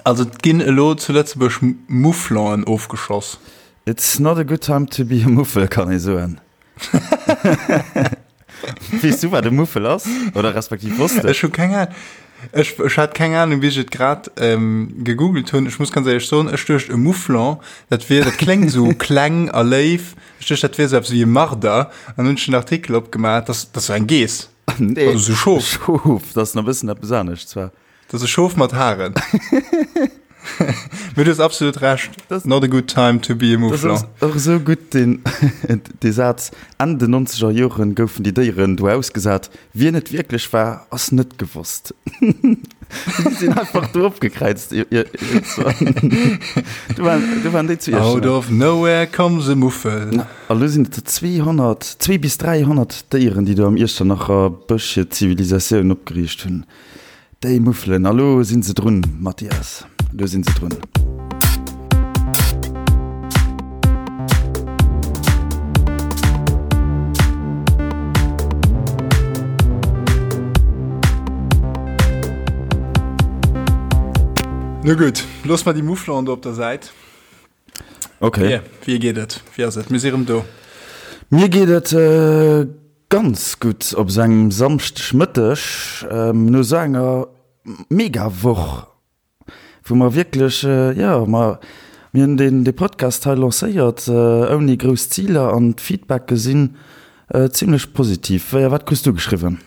Also et ginn elo zu Lëtzebuerg Mouflonen ofgeschoss. It's not a good time to be a Muffel, kann ee soen. Weess du, wat e Muffel ass? Oder respektiv wosst de? Ech hu keng Ahnung. Ech, ech hat keng Ahnung, bis ech et grad ähm, gegoogelt hunn. Ech muss ganz éierlech soen, ech duecht, e Mouflon, dat wier, dat kléngt esou kleng a léif. Ech duecht, dat wier esou eppes wéi e Marder. An hunn ech den Artikel opgemaach, dat, dat ass esou eng Geess. Nee. Also esou Schof. Schof, dat ass nach e bëssen eppes anescht zwar. Dat ass e Schof mat Haren. Mee du hues absolut Recht. Das, Not a good time to be a Mouflon. Das ass och esou gutt, deen, dee Saz, Enn den nonzeger Joren goufen déi Déieren do ausgesat. Wien et wierklech war, ass net gewosst. Déi sinn einfach do opgekräizt. Do waren, do waren déi zu Out of nowhere comes a Muffel. A lo sinn et der 200, zwee bis 300 Déieren, déi do am Iechternacher Bësch hir Zivilisatioun opgeriicht hunn. Déi Muffelen, a lo sinn se drun, Mathias, lo sinn se drun. No gutt, loosse mer déi Mufflon do op der Säit. Ok. Wéi, wéi geet et? Wéi ass et? Mir si rëm do. Mir geet et ganz gutt op esou engem Samschdegmëtteg, no esou enger mega Woch, wou mer wierklech, jo, mer, mir hunn deen, dee Podcast hei lancéiert ouni grouss Ziler an d'Feedbacke sinn zimlech positiv. Wéi a wat krus du geschriwwen?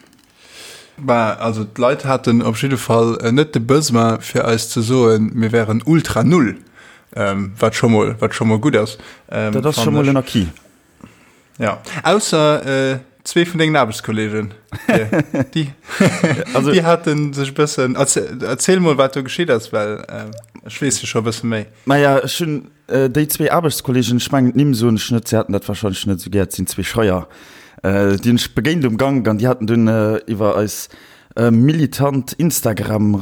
Bah, also d'Leit haten op jidde Fall net de Besoin fir eis ze soen, mir wären ultra null, wat scho mol, wat scho mol gutt ass. Dat ass scho mol en Acquis. Ja, ausser zwee vun dengen Aarbechtskollegen. Déi, déi hate sech e bëssen, erziel mol wat do geschitt ass, well ech weess jo scho e bësse méi. Maja, ech hunn Déi zwee Aarbechtskollegen, ech mengen d'Nimm soen ech net, si haten dat warscheinlech net esou gär, et sinn zwee Schreier, déi hunn ech begéint um Gank an déi haten dunn iwwer eis militant Instagram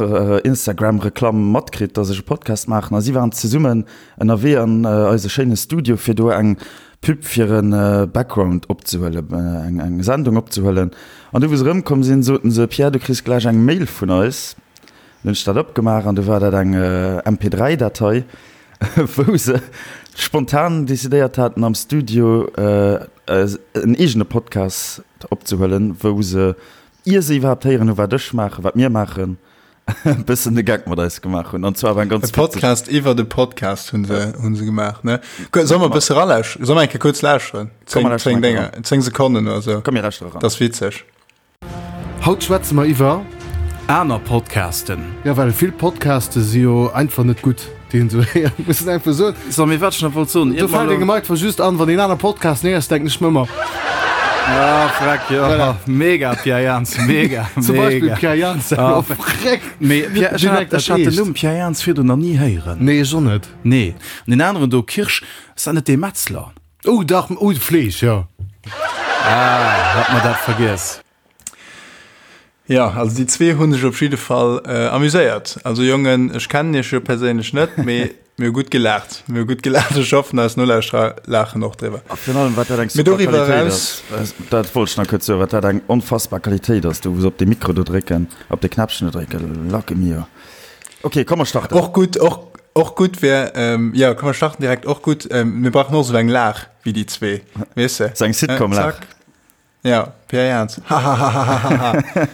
Instagram-Reklamm matkritt, dass ech e Podcast maachen a si waren zesummen ënnerwee an eise schéine Studio fir do eng Pub fir e Background opzehuelen, eng Sendung opzehuelen. An du wou se erëmkomm sinn, soten se, Pierre, du kriss gläich eng Mail vun eis. Dann hunn ech dat opgemaach an du war dat eng MP3-Datei. wou se spontan decidéiert haten am Studio en eegene Podcast opzehuelen, wou se, ier se iwwerhaapt héieren hu wat ech maachen, wat mir maachen, e bëssen de Geck mat eis gemaach hunn. An zwar war eng ganz E Podcast iwwer de Podcast hunn se, hunn se gemaach, ne? Solle mer e bësse ralauschteren? Solle mer eng Kéier kuerz lauschteren? 10, 10 Dénger, 10 Sekonnen oder sou. Komm mir lauschtere eran. Dat ass witzeg. Haut schwätze mer iwwer. Aner Podcasten. Jo, well vill Podcaste si jo einfach net gutt, déi een esou héiert, muss een einfach soen. So, mee wat ech nach wollt soen, Do fält engem einfach just an, wann een aner Podcasten héiers, denken ech mer ëmmer. Ah, freck, jo. Voilà. Mega, Pierre Jans, mega, mega. Zum Beispill Pierre Jans, ah, freck. Mee Pierre, ech hat, ech hat den Numm Pierre Jans virdrun nach ni héieren. Nee, ech och net. Nee. An deen aneren do, Kirsch, ass dat net dee Metzler? Oh dach, oh de Fleesch, jo. Ah, hat mer dat vergiess. Jo, also déi zwee hu sech op jidde Fall amuséiert. Also Jongen, ech kennen iech jo perséinlech net, mee mir hu gutt gelaacht. Mir hu gutt gelaacht. Ech hoffen, eis Nolauschterer laachen och driwwer. A virun allem, wat dat eng super Qualitéit ass, dat wollt ech nach kuerz soen, wat dat eng onfassbar Qualitéit ass, do wou se op dee Mikro do drécken, op dee Knäppchen do drécken, lacke mio. Ok, komm mer starten. Och gutt, och, och gutt wär, ähm, jo, komm mer starten direkt. Och gutt, ähm, mir brauchen och esou eng Laach wéi déi zwee, weess de? Sou eng Sitcom-Laach. Zack. Ja, Pierre Jans. Hahahahaha. Ja.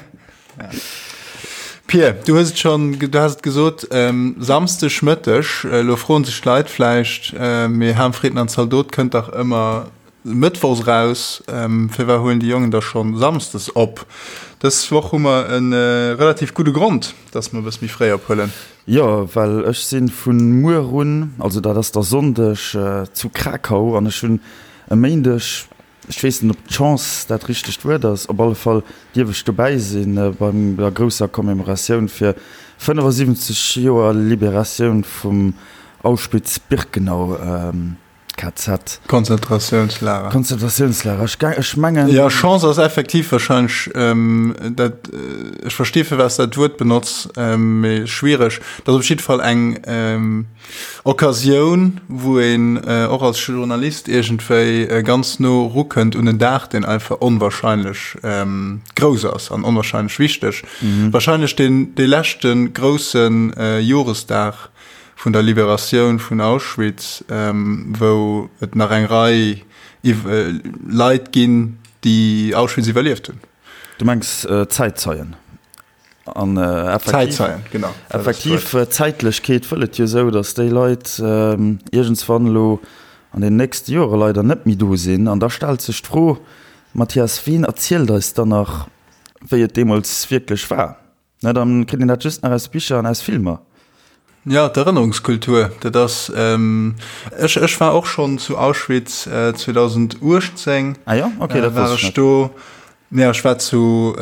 Pierre, du hues et schon, du has et gesot, ähm, Samsdeg Mëtteg, elo froen sech d'Leit vläicht, äh, mee Ham, Fritten an Zaldot kënnt dach ëmmer Mëttwochs eraus, firwat huelen déi Jongen da schonn Samsdes op? Dës Woch hu mer e relativ gudde Grond, dass mer e bësse méi fréi ophuelen. Jo, well ech si vu muer un, also dat ass da Sonndeg, zu Krakau an ech hunn e Méindeg, ech weess net ob d'Chance dat richtegt Wuert ass, op alle Fall dierf ech dobäi si bei der grousser Commemoratioun fir 75 Joer Liberatioun vum Auschwitz-Birkenau. KZ. Konzentratiounslager. Konzentratiounslager. Ech, ech mengen. Ja, Chance ass effektiv wahrscheinlech, ähm, dat, äh, ech versti fir was dat Wuert benotz, ähm, mee schwiereg. Dat ass op jidde Fall eng ähm, Occasioun, wou een äh, och als Journalist iergendwéi äh, ganz no rukënnt un en Dag, deen einfach onwahrscheinlech ähm, grouss ass an onwahrscheinlech wichteg. Mhm. Wahrscheinlech den, dee leschte groussen äh, Joresdag vun der Liberatioun vun Auschwitz, wou et nach eng Rei Leit ginn, déi Auschwitz iwwerlieft hunn. Du mengs Zäitzeien? An effektiv, Zäitzeien, genau. Effektiv, d'Zäitlechkeet wëll et jo esou, datt déi Leit iergendswann elo an den nächste Jore leider net méi do sinn. An da stellt sech d'Fro, Mathias, wien erzielt eis dann nach, wéi et deemools wierklech war? Na, dann kritt een dat just nach aus Bicher an aus Filmer. Ja, d'Erënnerungskultur, dat ass, ech, ech war och schonn zu Auschwitz 2018. Ah jo, okay, dat war wosst ech ech net. do. Ja, ech war zu,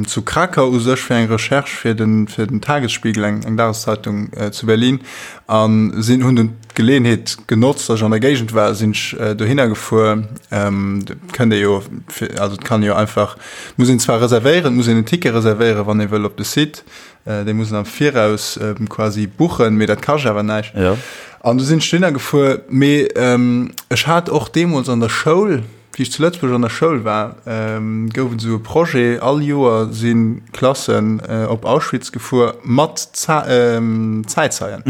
zu Krakau u sech fir eng Recherche fir den, fir den Tagesspiegel, eng, eng Dageszeitung zu Berlin, a sinn, hunn dunn d'Geleeënheet genotzt, datt ech an der Géigend war, sinn ech dohinner gefuer. Dat kënnt ee jo, also et kann ee jo einfach, et muss een zwar reservéieren, et muss een en Ticket reservéieren, wann ee wëll op de Site, dee muss een am Viraus quasi buchen, mee dat kascht awer näischt. An du sinn ech dohinner gefuer, mee ech hat och deemools an der Schoul, Wéi ech zu Lëtzebuerg an der Schoul war, gouf et esou e Projet, all Joer si Klassen op Auschwitz gefuer mat Zäitzeien.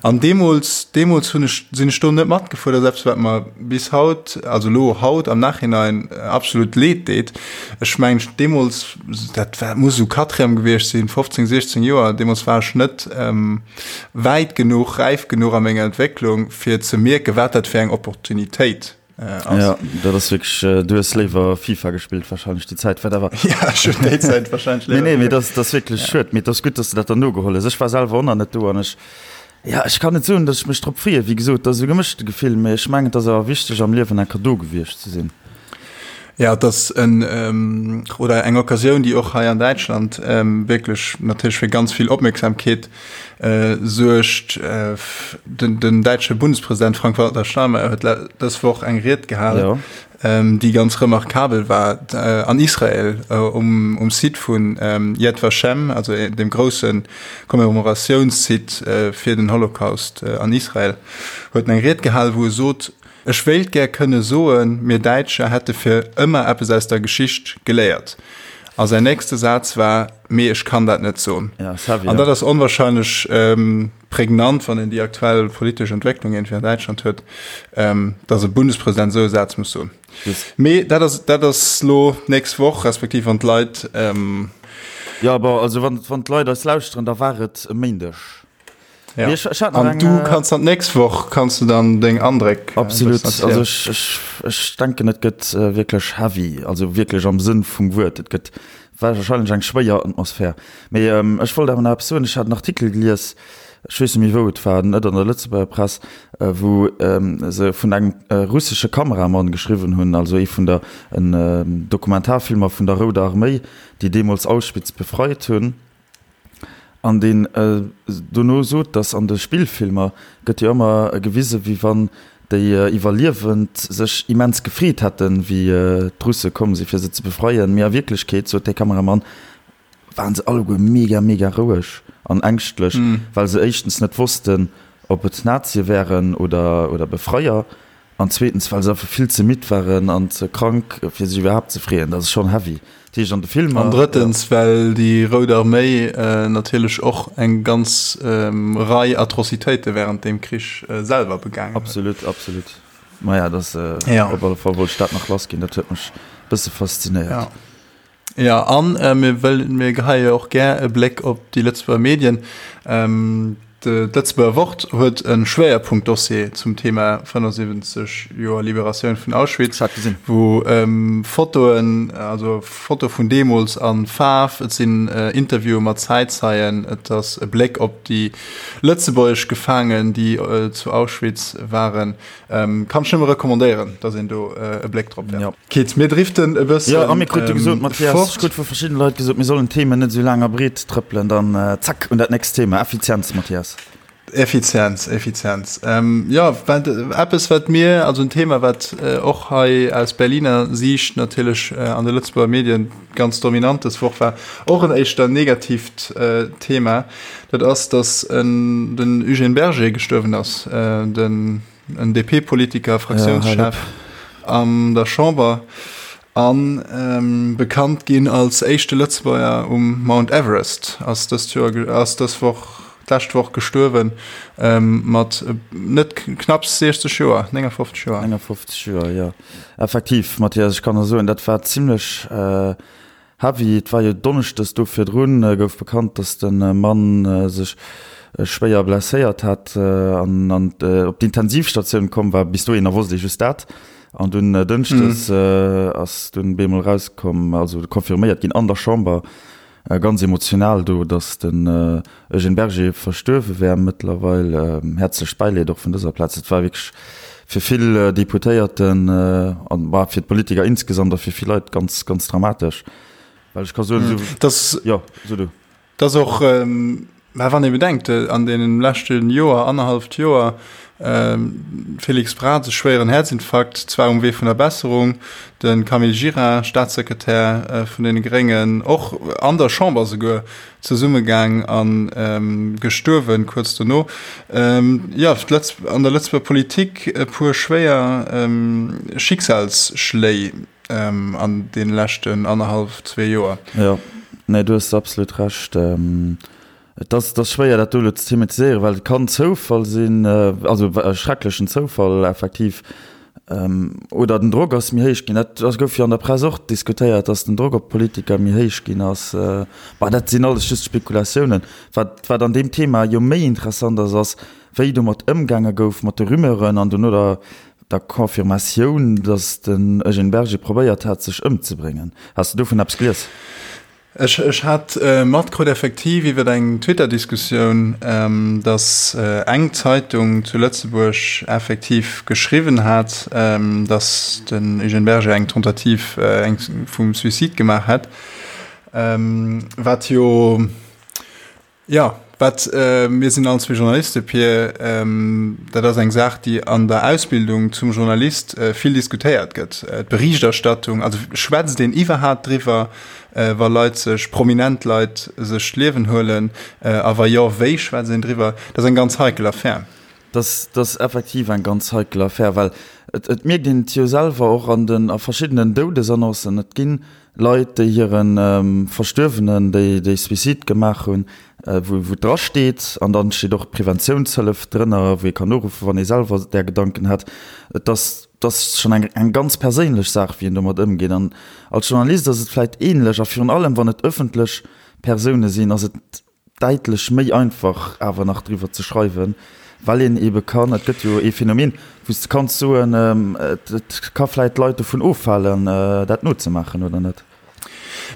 An deemools, deemools hunn ech, sinn ech do net matgefuer. Dat ass eppes, wat mer bis haut, also elo haut am Nachhinein absolut leed deet. Ech mengen, deemools, dat war, muss esou Quatrième gewiescht sinn, 15, 16 Joer, deemools war ech net wäit genuch, räif genuch a menger Entwécklung, fir ze mierken, wat dat fir eng Opportunitéit Äh, ja, dat ass wierklech, du hues léiwer FIFA gespillt wahrscheinlech déi Zäit, wat awer. Ja, ech hunn déi Zäit wahrscheinlech léiwer. Nee, nee, mee dat ass wierklech ja. schued. Mee et ass gutt, dass du dat dann nogeholl hues. Ech war selwer och nach net do an ech, ja, ech kann net soen, dass ech mech drop freeën. Wéi gesot, dat ass e gemëschte Gefill, mee ech mengen, et ass awer wichteg am Liewen eng Kéier do gewiescht ze sinn. Ja, et ass en, oder eng Occasioun, déi och hei an Däitschland wierklech natierlech fir ganz vill Opmierksamkeet suergt. Den däitsche Bundespresident Frank-Walter Steinmeier huet dës Woch eng Ried gehalen, déi ganz remarkabel war, an Israel um Site vun Yad Vashem, also dem grousse Commemoratiounssite fir den Holocaust an Israel, huet en eng Ried gehalen, wou e sot, Ech wéilt gär kënne soen, mir Däitscher hätte fir ëmmer eppes aus der Geschicht geléiert. A säin nächste Saz war, Mee ech kann dat net soen. An dat ass onwahrscheinlech prägnant, wann een déi aktuell politesch Entwécklung iergendwéi an Däitschland huet, datt e Bundespresident esou e Saz muss soen. Mee dat ass, dat ass lo d'nächst Woch, respektiv wann d'Leit. Jo, bon, also wann d'Leit eis lauschteren, da war et e Méindeg. Ja. Ech, ech an eng, du äh, kannst dann nächst Woch kannst du dann deng Andréck äh, absolut also ech, ech, ech denken et gëtt äh, wierklech heavy also wierklech am Sënn vum Wuert et gëtt wahrscheinlech eng schwéier Atmosphär mee ähm, ech wollt awer nach eppes soen ech hat en Artikel gelies ech weess net méi wou et war net an der Lëtzebuerger Press äh, wou ähm, se vun engem äh, russesche Kameramann geschriwwen hunn also ee vun der en äh, Dokumentarfilmer vun der Rouder Arméi déi deemools Auschwitz befreit hunn An deen dono sot, datt an de Spillfilmer gëtt jo ëmmer gewise wéi wann déi Iwwerliewend sech immens gefreet hätten, wéi d'Russe komm si fir se ze befreien. Mee a Wierklechkeet, sot dee Kameramann, waren se alleguer mega mega roueg an ängschtlech, well se éischtens net wossten, ob et Nazie wären oder Befreier. An zweetens, well se einfach vill ze midd waren an ze krank, fir sech iwwerhaapt ze freeën. Dat ass schonn heavy. Dat heescht, an de Filmer. An drëttens, well déi Rout Arméi natierlech och eng ganz Rei Atrocitéite wärend deem Krich selwer begaangen huet. Absolut, absolut. Maja, dat ass op alle Fall wollt ech dat nach lassginn. Dat huet mech e bësse faszinéiert. Jo, an mir wëll, mir geheie jo och gär e Bléck op déi Lëtzebuerger Medien. D'Lëtzebuerger Wort huet e Schwéierpunktdossier zum Thema 75 Joer Liberatioun vun Auschwitz, wou Fotoen, also Foto vun deemools a Faarf, et sinn Interviewe mat Zäitzeien, et ass e Bléck op déi lëtzebuergesch Gefaangen, déi zu Auschwitz waren. Ähm, kann ech nëmme recommandéieren, dass een do äh, e Bléck drop werft. Ja. Kitt, mir driften e bëssen. Ja, a mir krute gesot, Mathias, ech krut vu verschiddene Leit gesot, mir sollen d'Themen net esou laang a breet trëppelen, dann äh, zack, un dat nächst Thema, Effizienz, Mathias. Effizienz, Effizienz. Jo, wat eppes, wat mir, also en Thema, wat och hei aus Berliner Siicht natierlech an de Lëtzebuerger Medien ganz dominant dës Woch war, och en éischter negatiivt Thema, dat ass, datt den Eugène Berger gestuerwen ass, den en DP-Politiker, Fraktiounschef an der Chamber a bekannt ginn als éischte Lëtzebuerger um Mount Everest, ass dëst Joer, ass dës Woch, d'lescht Woch gestuerwen, mat net knapps 60 Joer, 59 Joer. 59 Joer, jo. Effektiv, Mathias, ech kann der soen, dat war zimlech Heavy, et war jo Donneschdes do virdrun gouf bekannt, datt de Mann sech schwéier blesséiert hat an op d'Intensivstatioun komm war. Bis dohinner wosst ee just dat. An dunn Dënschdes ass dunn bemol erauskomm, also confirméiert ginn an der Chamber, ganz emotional do, datt den Eugène Berger verstuerwe wär mëttlerweil. Häerzlecht Bäileed och vun dëser Plaz. Et war wierklech fir vill Deputéierten an bah fir d'Politiker insgesamt a fir vill Leit ganz, ganz dramatesch. Well ech ka soen, esou. Dass. Jo, so du. Dass och, mä wann ee bedenkt, an deenen leschte Joer, annerhalleft Joer, Félix Braz, e schwéieren Häerzinfarkt, zwar um Wee vun der Besserung, de Camille Gira, Staatssekretär vun deene Gréngen, och an der Chamber souguer, zesummegaang a gestuerwen kuerz dono. Jo, an der Lëtzebuerger Politik e puer schwéier Schicksalsschléi an deene leschten annerhallef, zwee Joer. Jo, nee, du hues absolut Recht. Et ass, et ass schwéier dat do elo ze thematiséieren, well et kann Zoufall sinn, also e schrecklechen Zoufall effektiv, Oder den Drock ass méi héich ginn. Dat ass gouf jo an der Press och diskutéiert, datt den Drock op d'Politiker méi héich ginn ass. Bah, dat sinn alles just Spekulatiounen. Wat, wat an deem Thema jo méi interessant ass, ass, wéi domat ëmgaange gouf, mat de Rumeuren an dono der, der Confirmatioun, datt den Eugène Berger probéiert hat, sech ëmzebréngen. Has de dovun eppes gelies? Ech ech hat matkrut effektiv iwwer eng Twitter-Diskussioun, datt eng Zeitung zu Lëtzebuerg effektiv geschriwwen hat, datt den Eugène Berger eng Tentative vum Suicide gemaach hätt, wat jo Jo, wat, mir sinn all zwee Journaliste, Pir, dat ass eng Saach, déi an der Ausbildung zum Journalist vill diskutéiert gëtt, d'Berichterstattung, also schwätzt een iwwerhaapt driwwer, wa Leit sech, prominent Leit sech d'Liewen huelen, a wa jo, wéi schwätzt een driwwer? Dat ass eng ganz heikel Affär. Dat ass effektiv eng ganz heikel Affär, well et mierkt een et jo selwer och an den, a verschiddenen Doudesannoncen, et ginn Leit, déi hire Verstuerwenen, déi déi Suicide gemaach hunn, wou wou dra steet, an dann steet och d'Preventiounshëllef drënner, wou ee kann uruffen, wann ee selwer där Gedanken hätt. Et ass, et ass schonn eng eng ganz perséinlech Saach, wéi een domat ëmgeet. An als Journalist ass et vläicht ähnlech, a virun allem wann et ëffentlech Persoune sinn, ass et däitlech méi einfach awer nach driwwer ze schreiwen, well een ebe kann, et gëtt jo ee Phänomen, wou s de kanns soen, et ka vläit d'Leit dovun ofhalen, dat nozemaachen, oder net?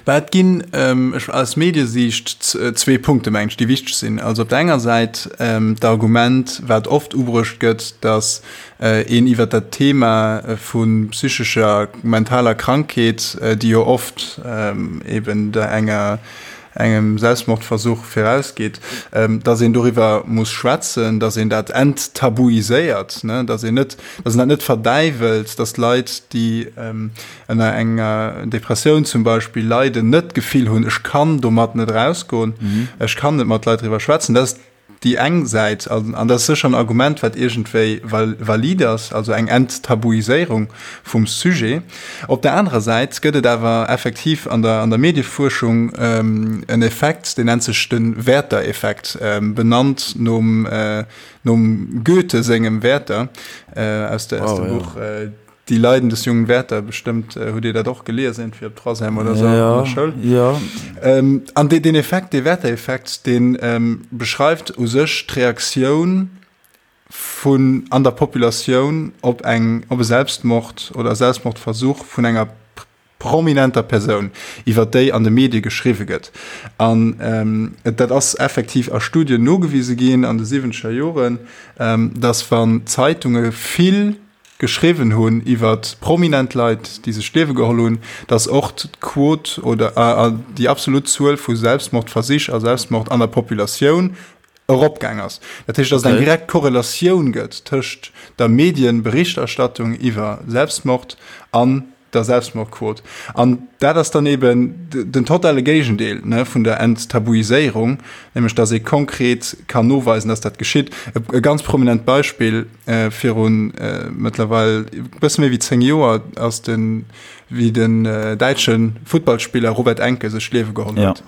Bah, et ginn aus Mediesiicht zwee Punkte, mengen ech, déi wichteg sinn. Also op der enger Säit d'Argument, wat oft ubruecht gëtt, datt een iwwer dat Thema vu psychescher, mentaler Krankheet, déi jo oft eben der enger engem Selbstmordversuch virausgeet, dass een doriwwer muss schwätzen, dass een dat enttabuiséiert, dass een net, dass een dat net verdäiwelt, dass Leit, déi ënner enger Depressioun zum Beispill leiden, net d'Gefill hunn, ech kann domat net erausgoen, ech kann net mat Leit driwwer schwätzen. Dat ass déi eng Säit, an dat ass sécher en Argument, wat iergendwéi valide ass, also eng Enttabuiséierung vum Sujet. Op der anerer Säit gëtt et awer effektiv an der, an der Mediefuerschung en Effekt, deen nennt sech de Werther-Effekt, benannt nom, nom Goethe sengem Werther aus der, aus dem Buch Die Leiden des jungen Werther, bestëmmt hutt Dir dat och gelies, iergendwéi op Troisième oder esou an der Schoul. Ja. An deen Effekt, dee Werther-Effekt, dee beschreift u sech d'Reaktioun vun an der Populatioun op eng, op e Selbstmord oder e Selbstmordversuch vun enger prominenter Persoun, iwwer déi an de Medie geschriwwe gëtt. An dat ass effektiv a Studien nogewise ginn an de siwwenzeger Joren, dass wann Zeitunge vill geschriwwen hunn iwwer prominent Leit, déi sech d'Liewe geholl hunn, dass och d'Quot oder déi absolut Zuel vu Selbstmordversich a Selbstmord an der Populatioun. Eropgaang ass. Dat heescht, dass et eng direkt Korrelatioun gëtt tëscht der Medienberichterstattung iwwer Selbstmord an der Selbstmordquot. An dat ass dann eben den totale Géigendeel, ne, vun der Enttabuiséierung, nämlech dass ee konkret kann noweisen, dass dat geschitt. E ganz prominent Beispill, Virun mëttlerweil e bësse méi wéi 10 Joer ass den, wéi den däitsche Futtballspiller Robert Enke sech d'Liewe geholl huet.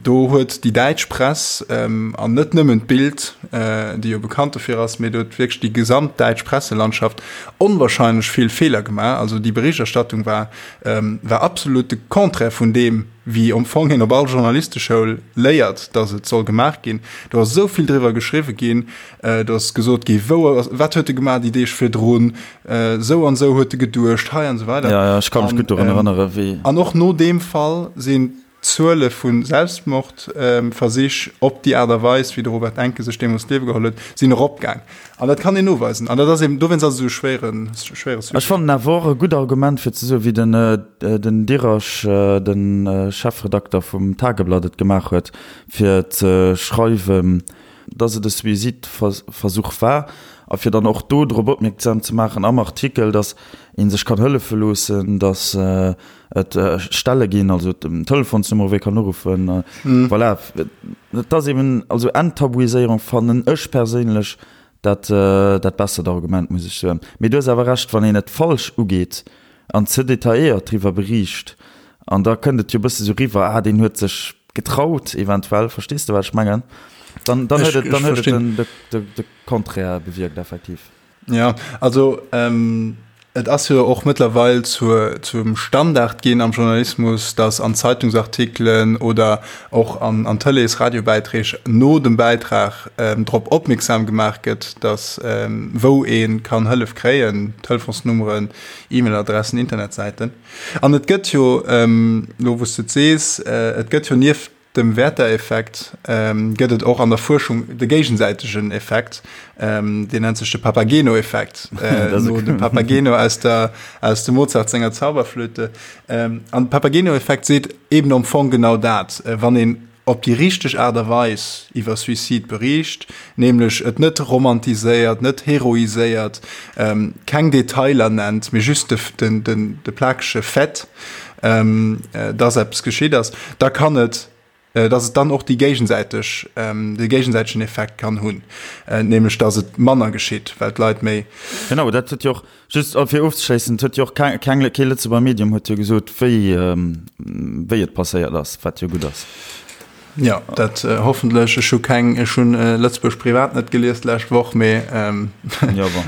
Do huet déi däitsch Press, an net nëmmen d'Bild, déi jo bekannt dofir ass, mee do huet wierklech déi gesamt däitsch Presselandschaft onwahrscheinlech vill Feeler gemaach. Also déi Berichterstattung war, war absolut de Contraire vun deem, wéi am Fong een op all Journalisteschoul léiert, datt et soll gemaach ginn. Do ass esou vill driwwer geschriwwe ginn, do ass gesot gi wou ass, wat huet e gemaach déi Deeg virdrun, esou an esou huet e geduecht hei an esou weider. Ja, ja, ech ka mech gutt dorun erënnere wéi. An och no deem Fall sinn d'Zuele vu Selbstmordversich op déi Aart a Weis, wéi de Robert Enke sech deemools d'Liewe geholl huet, sinn eropgaang. An dat kann een noweisen. An dat ass eben, dowéinst ass et esou e schwéiere, schwéiere Sujet. Ech fannen awer och e gutt Argument fir ze soen, wéi den, den Dirasch, de Chefredakter vum Tageblatt et gemaach huet, fir ze schreiwen, dass et e Suizidversuch war a fir dann och do drop opmierksam ze maachen am Artikel, dass ee sech kann hëllefe loossen, dass et Stelle ginn, also Telefonsnummere wou ee kann uruffen. Voilà, et ass eben, also Enttabuiséierung fannen ech perséinlech dat dat bessert Argument, muss ech soen. Mee du hues awer Recht, wann een et falsch ugeet an ze detailléiert driwwer beriicht, an da kënnt et jo e bësse sou riwwer, ah deen huet sech getraut eventuell, verstees de wat ech mengen? Dann dann huet et dann huet et den de Contraire bewierkt effektiv. Jo, also et ass jo och mëttlerweil zur, zum Standard ginn am Journalismus, datt an Zeitungsartikelen oder och an, an Tëlees-, Radiobäiträg no dem Bäitrag drop opmierksam gemaach gëtt, datt wou ee kann Hëllef kréien, Telefonsnummeren, E-Mail-Adressen, Internetsäiten. An et gëtt jo, elo wou s de et sees, et gëtt jo nieft Dem Werther-Effekt gëtt et och an der Fuerschung de géigesäitegen Effekt, deen nennt sech de Papageno-Effekt, no dem Papageno aus der, aus dem Mozart senger Zauberflöte. An de Papageno-Effekt seet eben am Fong genau dat, wann een op déi richteg Aart a Weis iwwer Suicide bericht, nämlech et net romantiséiert, net heroiséiert, keng Detailer nennt, mee just de, de, de plakege Fait, dass eppes geschitt ass, da kann et, dass et dann och déi géigesäiteg, de géigesäitegen Effekt kann hunn, nämlech dass et manner geschitt, well d'Leit méi. Genau, dat huet jo och, just fir ofzeschléissen, et huet jo och keng, keng, kee Lëtzebuerger Medium huet jo gesot, wéi, wéi et passéiert ass, wat jo gutt ass. Jo, dat hoffentlech. Ech hu keng, ech hunn Lëtzebuerg Privat net gelies d'lescht Woch, mee Jo, bon.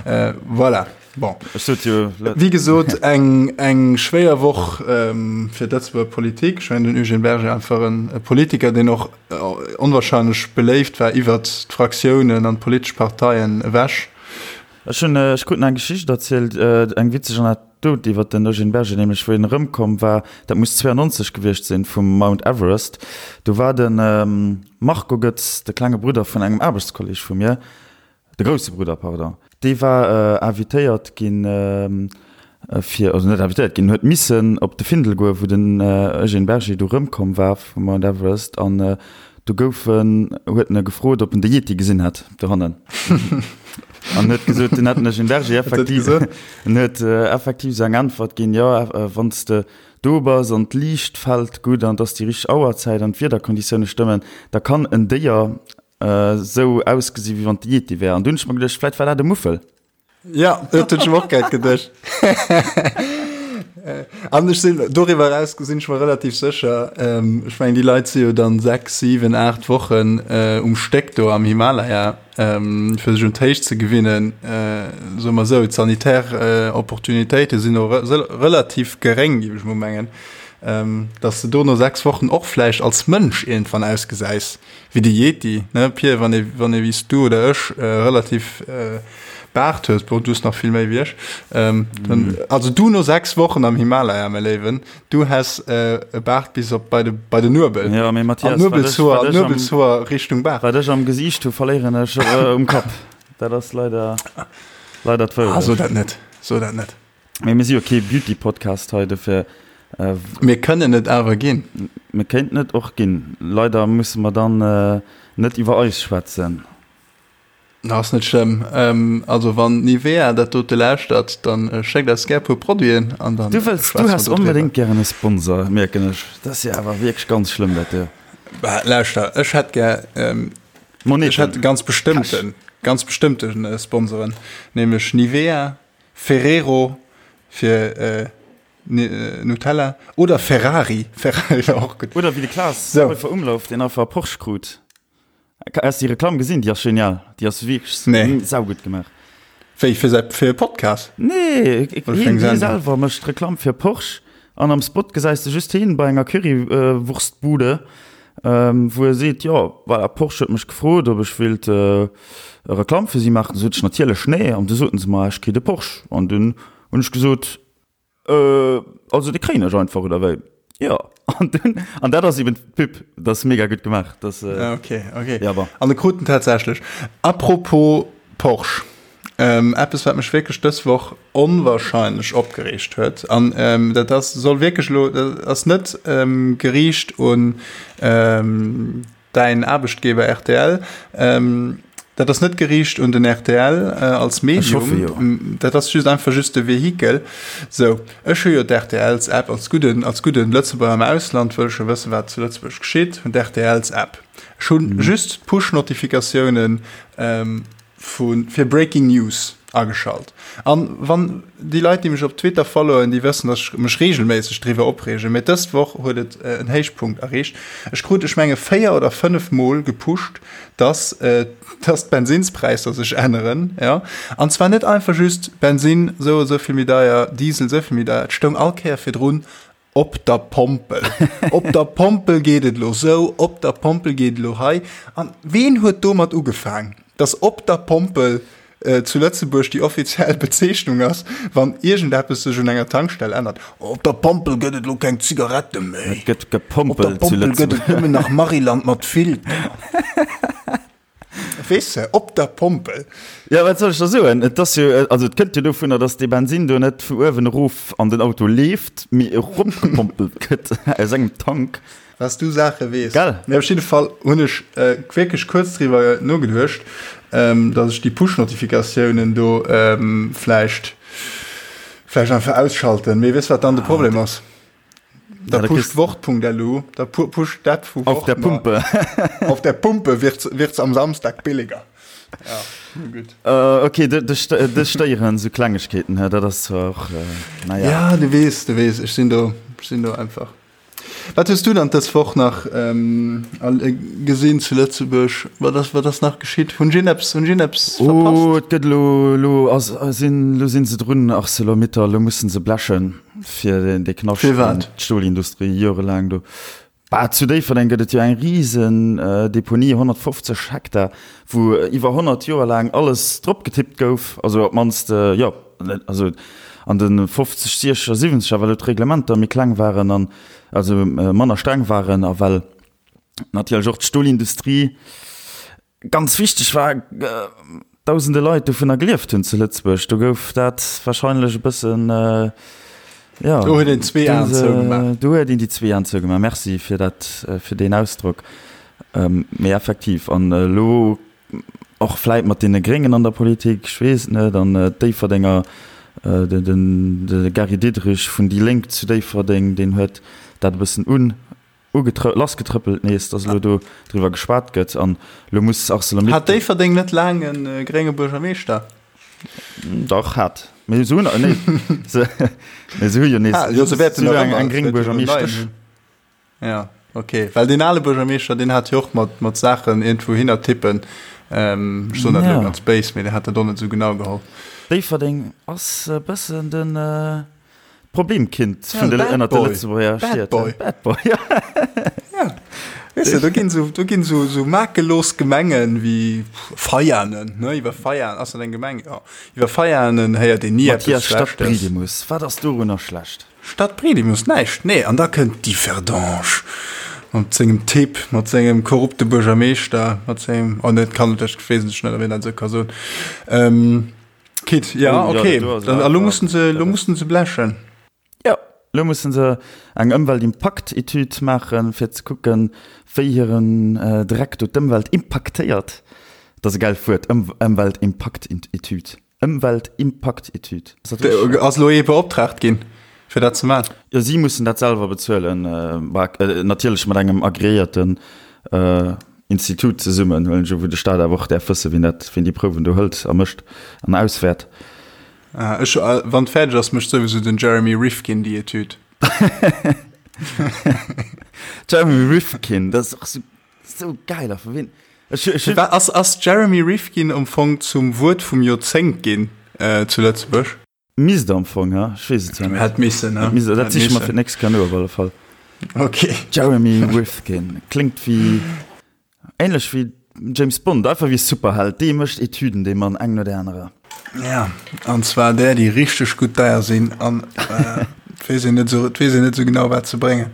voilà. Bon. Ech sot jo. Wéi gesot, eng, eng schwéier Woch fir d'Lëtzebuerger Politik. Ech mengen, den Eugène Berger einfach en e Politiker, deen och onwahrscheinlech beléift war iwwert d'Fraktiounen an d'politesch Parteien ewech. Ech hunn, ech krut nach eng Geschicht erzielt, eng witzeg Anekdot iwwert den Eugène Berger, nämlech wéi en erëmkomm war, dat muss 92 gewiescht sinn, vum Mount Everest. Do war de Marco Goetz, de klenge Brudder vun engem Aarbechtskolleg vu mir, De grousse Brudder, pardon. Dee war invitéiert ginn, fir, also net invitéiert ginn, huet missen op de Findel goen, wou den Eugène Berger du rëmkomm war vum Mount Everest. An do gouf en, huet en e gefrot, ob en de Yeti gesinn hätt dohannen. An huet gesot, en hätt den Eugène Berger effektiv, en huet effektiv esou eng Äntwert ginn, jo, wann s de do bass an d'Liicht fält gutt an et ass déi richteg Auerzäit an d'Wiederkonditioune stëmmen, da kann en Déier Sou ausgesi wéi wann et de Yeti wär. An dunn hunn ech mer geduecht, vläit war dat e Muffel. Ja, dat hunn ech mer och grad geduecht. An ech sinn doriwwer eraus sinn ech mer relativ sécher, ech mengen déi Leit si jo dann 6, 7, 8 Wochen um Stéck do am Himalaya, fir sech un d'Héicht ze gewinnen. Soe mer esou, d'sanitär Opportunitéite sinn och relativ geréng, géif ech mol mengen, dass de do no 6 Wochen och vläicht als Mënsch iergendwann ausgesäis. Wéi de Yeti, ne Pir, wann ee, wann ee wéi s du oder ech relativ Baart hues, bon, du hues nach vill méi wéi ech, dann, also du no 6 Wochen am Himalaya, mäi Léiwen, du häss e Baart bis op bei de, bei de Nuebel. Jo, mee Mathias, An d'Nuebelshoer, an d'Nuebelshoer Richtung Baart. Wat ech am Gesiicht hu, verléieren ech um Kapp. Dat ass leider, leider d'Wourecht. Ah, so dat net, so dat net. Mee mir si jo kee Beauty-Podcast hei, dofir. Mir kënnen et awer ginn. Mir kéinten et och ginn. Leider musse mer dann. net iwwer eis schwätzen. Ass net schlëmm. Also wann Nivea dat dote lauschtert, dann schéckt eis gär puer Produiten an dann Du wëlls, du häss onbedéngt gären e Sponsor, mierken ech. Dat ass jo awer wierklech ganz schlëmm dat do. Bah, lauschter, ech hätt gär, ech hätt ganz bestëmmten, ganz bestëmmte Sponsoren, nämlech Nivea, Ferrero fir Nutella oder Ferrari, Ferrari wär och gutt. Oder wéi de Klaas Heufer-Umlauf, deen einfach e Porsche krut. Has déi Reklamm gesinn? Déi ass genial. Déi ass wierklech nee. saugutt gemaach. Wéi fir säi fir e Podcast? Nee, hien selwer mécht Reklamm fir Porsche an am Spot gesäis de just hien bei enger Currywurstbude, wou e seet, jo voilà, Porsche huet mech gefrot, ob ech wéilt Reklamm fir si maachen. Du sot ech natierlech nee an du soten se mer, ech kritt e Porsche an dunn hunn ech gesot, Äh, also de kréien ech einfach, oder wéi? Jo, an dunn, an dat ass eben d'Pub, dat ass mega gutt gemaach, dat. Äh, okay, okay. Ja, bon. An de krut en tatsächlech. Apropos Porsche, ähm, eppes wat mech wierklech dës Woch onwahrscheinlech opgereegt huet, an ähm, dat ass, soll wierklech elo, dat ass net ähm, geriicht un ähm, Däin Aarbechtgeber rtl, dat ass net geriicht un den rtl als Medium, dat ass just einfach just de Vehikel. Sou, ech hu jo d'RTLs-App als gudden, als gudden Lëtzebuerger am Ausland wëll ech jo wëssen, wat zu Lëtzebuerg geschitt, hunn d'RTLs-App. Ech hunn just d'Push-Notifikatiounen vu fir Breaking News ageschalt. An wann déi Leit, déi mech op Twitter followen, déi wëssen, dass ech mech regelméisseg driwwer opreegen, mee dës Woch huet et en Héichpunkt erreecht. Ech krut, ech menge 4 oder 5 Mol gepusht, dass, dass d'Bensinnspräisser sech änneren, jo. An zwar net einfach just Bensinn sou a sou vill méi deier, Diesel sou vill méi deier, et stoung all Kéier virdrun Op der Pompel. Op der Pompel geet et elo sou, op der Pompel geet et elo hei. An ween huet domat ugefaang, dass op der Pompel zu Lëtzebuerg déi offiziell Bezeechnung ass, wann iergendeppes sech un enger Tankstell ännert? Op der Pompel gëtt et elo keng Zigarette méi. Et gëtt gepompelt zu Lëtzebuerg. Op der Pompel gëtt et nëmmen nach Maryland mat Filter. Weess de, op der Pompel. Jo, wat soll ech da soen? Et ass jo, also et kënnt jo dovunner, dass dee Bensin do net vu uewen erof an den Auto leeft, mee eropgepompelt gëtt aus engem Tank. Was du Saache weess. Gell? Mee op jidde Fall hunn ech wierklech kuerz driwwer nogeduecht, dass ech déi Push-Notifikatiounen do vläicht, vläicht einfach ausschalten. Mee weess wat dann de Problem ass? Da pusht Wort.lu, da pusht dat vu Auf der Pumpe. Auf der Pumpe wird's, wird's am Samstag billiger. Ja, gut. Uh, okay, dech stéieren sou Klengegkeeten, dat ass zwar och, äh, naja. Ja, du weess, du weess, ech sinn do, ech sinn do einfach. Wat hues du dann dës Woch nach ähm, gesinn zu Lëtzebuerg? Wat ass, wat ass nach geschitt? Hunn ech iergendeppes, hunn ech iergendeppes verpasst? Oh, et gëtt elo, elo ass, sinn, elo sinn se drun, Arcelor-Mittal, elo mussen se blechen. Fir dee Knascht Fir wat? D'Stolindustrie jorelaang do. Bah, zu Déifferdeng gëtt et jo eng risen Deponie, 150 Hektar, wou iwwer 100 Joer laang alles drop getippt gouf. Also op d'mannst, jo, also an de 50, 60 a 70er, well do d'Reglementer méi kleng waren an also manner streng waren a well natierlech och d'Stolindustrie Ganz wichteg war, dausende Leit dovunner gelieft hunn zu Lëtzebuerg. Do gouf dat warscheinlech e bëssen, jo. Do huet een zwee Aen zougemaach. Do huet een déi zwee Aen zougemaach. Merci fir dat, fir deen Ausdrock. Mee effektiv, an elo och vläit mat deene Gréngen an der Politik, ech weess et net, an d'Déifferdenger, de Gary Diderich vun déi Lénk zu Déifferdeng, deen huet dat e bëssen un. Lassgetrëppelt nees, dass elo do driwwer geschwat gëtt an elo muss Arcelor-Mittal. Hat Déifferdeng net laang e grénge Buergermeeschter? Dach, hat. Mee se hunn, nee, se, mee se hu jo nees, Ah, jo, se wäerten se nach hu eng, ëmmer, eng se gréng wäerte jo en neien Buergermeeschtesch. hunn. Ja, okay. Well deen ale Buergermeeschter, deen hat jo och mat, mat Saachen iergendwou hinner tippen. Ech soen dat elo Ja. ganz béis, mee deen hat dat och net esou genau geholl. Déifferdeng ass e bëssen den, Problemkind Ja, vun de, Bad ënnert de Boy. Lëtzebuerger Bad Stied. Boy. Bad Boy, ja. Ja. Weess de, do ginn sou, do ginn sou, sou makellos Gemengen wéi Veianen, ne, iwwer Veianen, ass dat eng Gemeng? Jo. Iwwer Veianen héiert een ni eppes Mathias, Schlechtes. Stadtbriedemus, wat ass dorunner schlecht? Stadtbriedemus, näischt, nee. An da kënnt Differdange mat sengem Typ, mat sengem korrupte Buergermeeschter, mat sengem, oh net, kann et, ech weess net, ob een dat esou ka soen. Ähm, Kit, ja, Oh, ja, okay. dat do ass Dann, awer- a lo mussen se, lo mussen se blechen. Ja. Elo musse se eng Ëmweltimpakt-Etüd maachen, fir ze kucken, wéi hiren Dreck do d'Ëmwelt impaktéiert. Dat ass e gäilt Wuert, Ëmweltimpakt-Etüd. Ëmweltimpakt-Etüd. Ass dat richteg? Ass elo ee beoptraagt ginn, fir dat ze maachen? Jo, si mussen dat selwer bezuelen, natierlech mat engem agreéierten Institut zesummen, huelen ech u, wou de Staat awer och däerf wëssen, wien dat, wien déi Prouwen do hëlt a mécht an auswäert. Ah, ech, wann et fäerdeg ass, mécht souwisou den Jeremy Rifkin déi Etüd. Jeremy Rifkin, dat ass och sou, sou geil a vu wien? Ech, ech hunn. Ass, ass Jeremy Rifkin am Fong zum Wuert vum Joerzéngt ginn zu Lëtzebuerg? Misst am Fong, ha? Ech weess et zwar net. Hätt missen, ha? Hätt missen, dat siche mer fir d'nächst Kéier no op alle Fall. Okay. Jeremy Rifkin, kléngt wéi. Ähnlech wéi James Bond, einfach wéi e Superheld, dee mécht Etüden, dee Mann, eng no där anerer. Ja, an zwar där, déi richteg gutt deier sinn an et weess een net esou, et weess een net esou genau, wat se bréngen.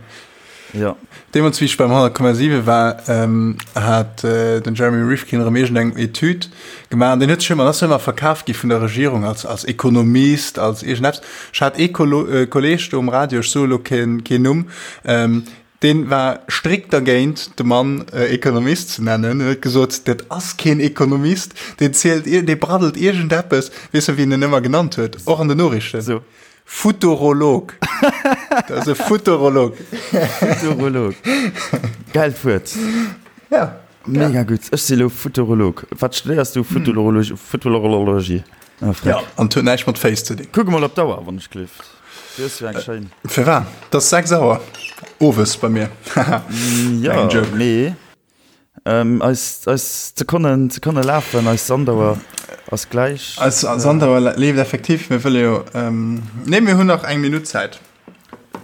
Jo. Deemools, wéi ech beim 100,7 war, hat den Jeremy Rifkin erëm iergendeng Etüd gemaach an deen huet sech ëmmer, ass ëmmer verkaf gi vun der Regierung als, als Ekonomist, als iergendeppes. Ech hat ee Kolleeg do um Radio, ech soe lo keen, keen Numm, Deen war strikt dergéint, de Mann Ekonomist ze nennen. En huet gesot, dat ass keen Ekonomist, deen zielt, dee braddelt iergendeppes. Weess de, wéi en en ëmmer genannt huet, och an den Noriichten? So. Futurolog. Dat ass e Futurolog. Futurolog. Gäilt Wuert. Ja. Mega gutt. Ech si lo Futurolog. Wat studéiers du? Futurologie. Futurologie. Ah, freck. Ja, an et huet näischt mat Féiss ze dinn. Kuck emol op d'Auer, wann ech gleeft. Du hues jo eng schéin. Firwat? Et ass 6 Auer owes bei mir. Jo, mee eis, eis Sekonnen, d'Sekonne lafen, eis Sandauer ass gläich. Eis Sandauer leeft effektiv. Mir wëlle jo, nee, mir hunn nach eng Minutt Zäit.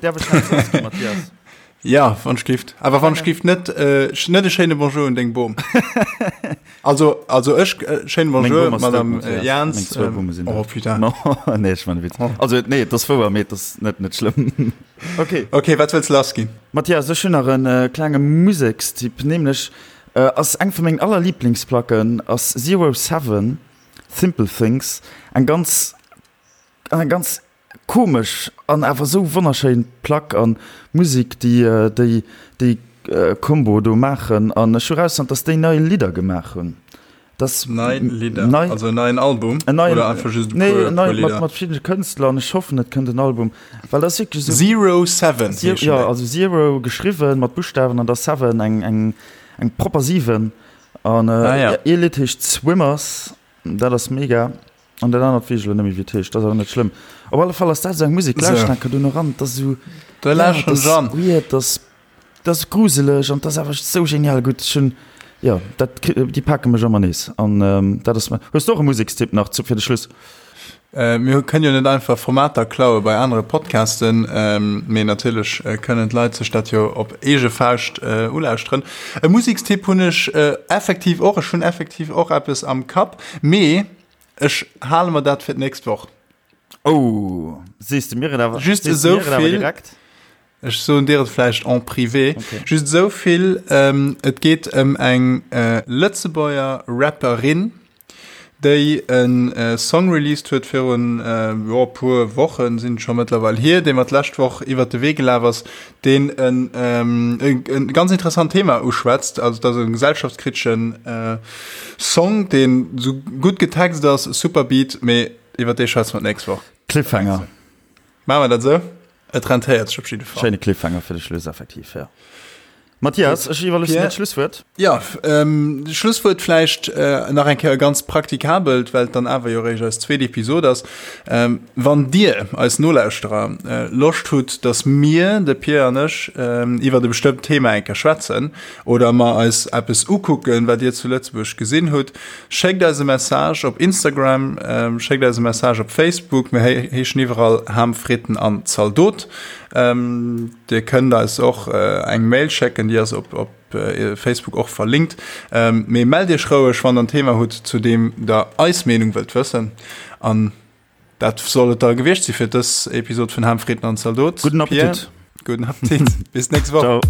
Däerf ech nach soss ginn, Mathias? Ja, wann ech gift. Awer wann ech gift net, äh, net e schéine Bonjour un deng Bom. Also, also ech, äh, schéine Bonjour, Meng Bom ass dout, Madame Mathias. äh, Jans. Meng zwou Ähm, Bumme sinn oh, dout. putain. No, nee, ech man e Witz. Oh. Also, nee, et ass wouer, mee et ass net, net schlëmm. Okay. Okay, wat wëlls lass ginn? Mathias, ech hunn nach en äh, klenge Musekstipp, nämlech äh, ass eng vu mengen allerliblingsplacken ass Zero Seven, Simple Things, eng ganz, eng ganz Komesch an awer sou wonnerschéin Plack an Musik déi déi déi Combo do maachen an ech hu rausfonnt dass déi nei Lidder gemaach hunn dass Nei Lidder, nei also en neien Album en neien oder einfach just e nee puer en neien puer mat Lidder? mat verschiddene Kënstler an ech hoffen et kënnt en Album well dat ass wierklech sou Zero Seven Zero heeschen jo déi. also Zero geschriwwen mat Buschtawen an da Seven eng eng eng propper 7 an Ah ja. ee Lidd heescht Swimmers dat ass mega. An dat anert weess ech elo net méi wéi et heescht, dat ass awer net schlëmm. Op alle Fall ass dat esou eng Musek, lauscht enker do no ran, dat ass esou, Da ja, lauschteren dat ech ass an. weird, dat ass, dat ass gruseleg an dat ass awer esou genial gutt. Ech hunn, jo, dat, déi pake mech ëmmer nees an dat ass. Hues de och e Musekstipp nach zu fir de Schluss? Mir kënnen jo net einfach Formater klaue bei anere Podcasten, mee natierlech kënnen d'Leit sech dat jo op eege Fauscht ulauschteren. E Musekstipp hunn ech effektiv och, ech hunn effektiv och eppes am Kapp, mee Ech hale mer dat fir d'nächst Woch. Oh, sees de mir et awer, Just sees de esou mir et awer vill. direkt? Ech soen dir et vläicht en privé. Okay. Just esou vill, ähm, et geet ëm eng äh, Lëtzebuerger Rapperin, déi en äh, Song released huet virun äh, jo, puer Wochen sinn et scho mëttlerweil hier, dee mer d'lescht Woch iwwert de Wee gelaf ass, deen en, ähm, e, e ganz interessant Thema uschwätzt. Also dat ass e gesellschaftskriteschen äh, Song, deen sou gutt getext ass, super Beat, mee iwwer dee schwätze mer d'nächst Woch. Cliffhanger. Maache mer dat esou? Et rentéiert sech op jidde Fall. Schéine Cliffhanger fir de Schluss, effektiv, jo. Mathias, ech iwwerloossen dir d'Schlusswuert. Jo, Schlusswuert vläicht nach eng Kéier e ganz praktikabelt, well et dann awer jo eréischt eis zweet Episod ass. Wann dir, eis Nolauschterer, Loscht hutt, datt mir, de Pir an ech, iwwert e bestëmmt Thema eng Kéier schwätzen oder mer eis eppes ukucken, wat dir zu Lëtzebuerg gesinn hutt, schéckt eis e Message op Instagram, schéckt eis e Message op Facebook. Mir heeschen iwwerall Ham, Fritten an Zaldot. Dir kënnt eis och eng Mail schécken, déi ass op op Facebook och verlinkt. Mee mellt iech roueg, wann der en Thema hutt, zu deem der eis Meenung wëllt wëssen. An dat soll et da gewiescht si fir dës Episod vun Ham, Fritten an Zaldot. Gudden Appetit! Pierre, gudden Appetit! Bis d'nächst Woch! Ciao!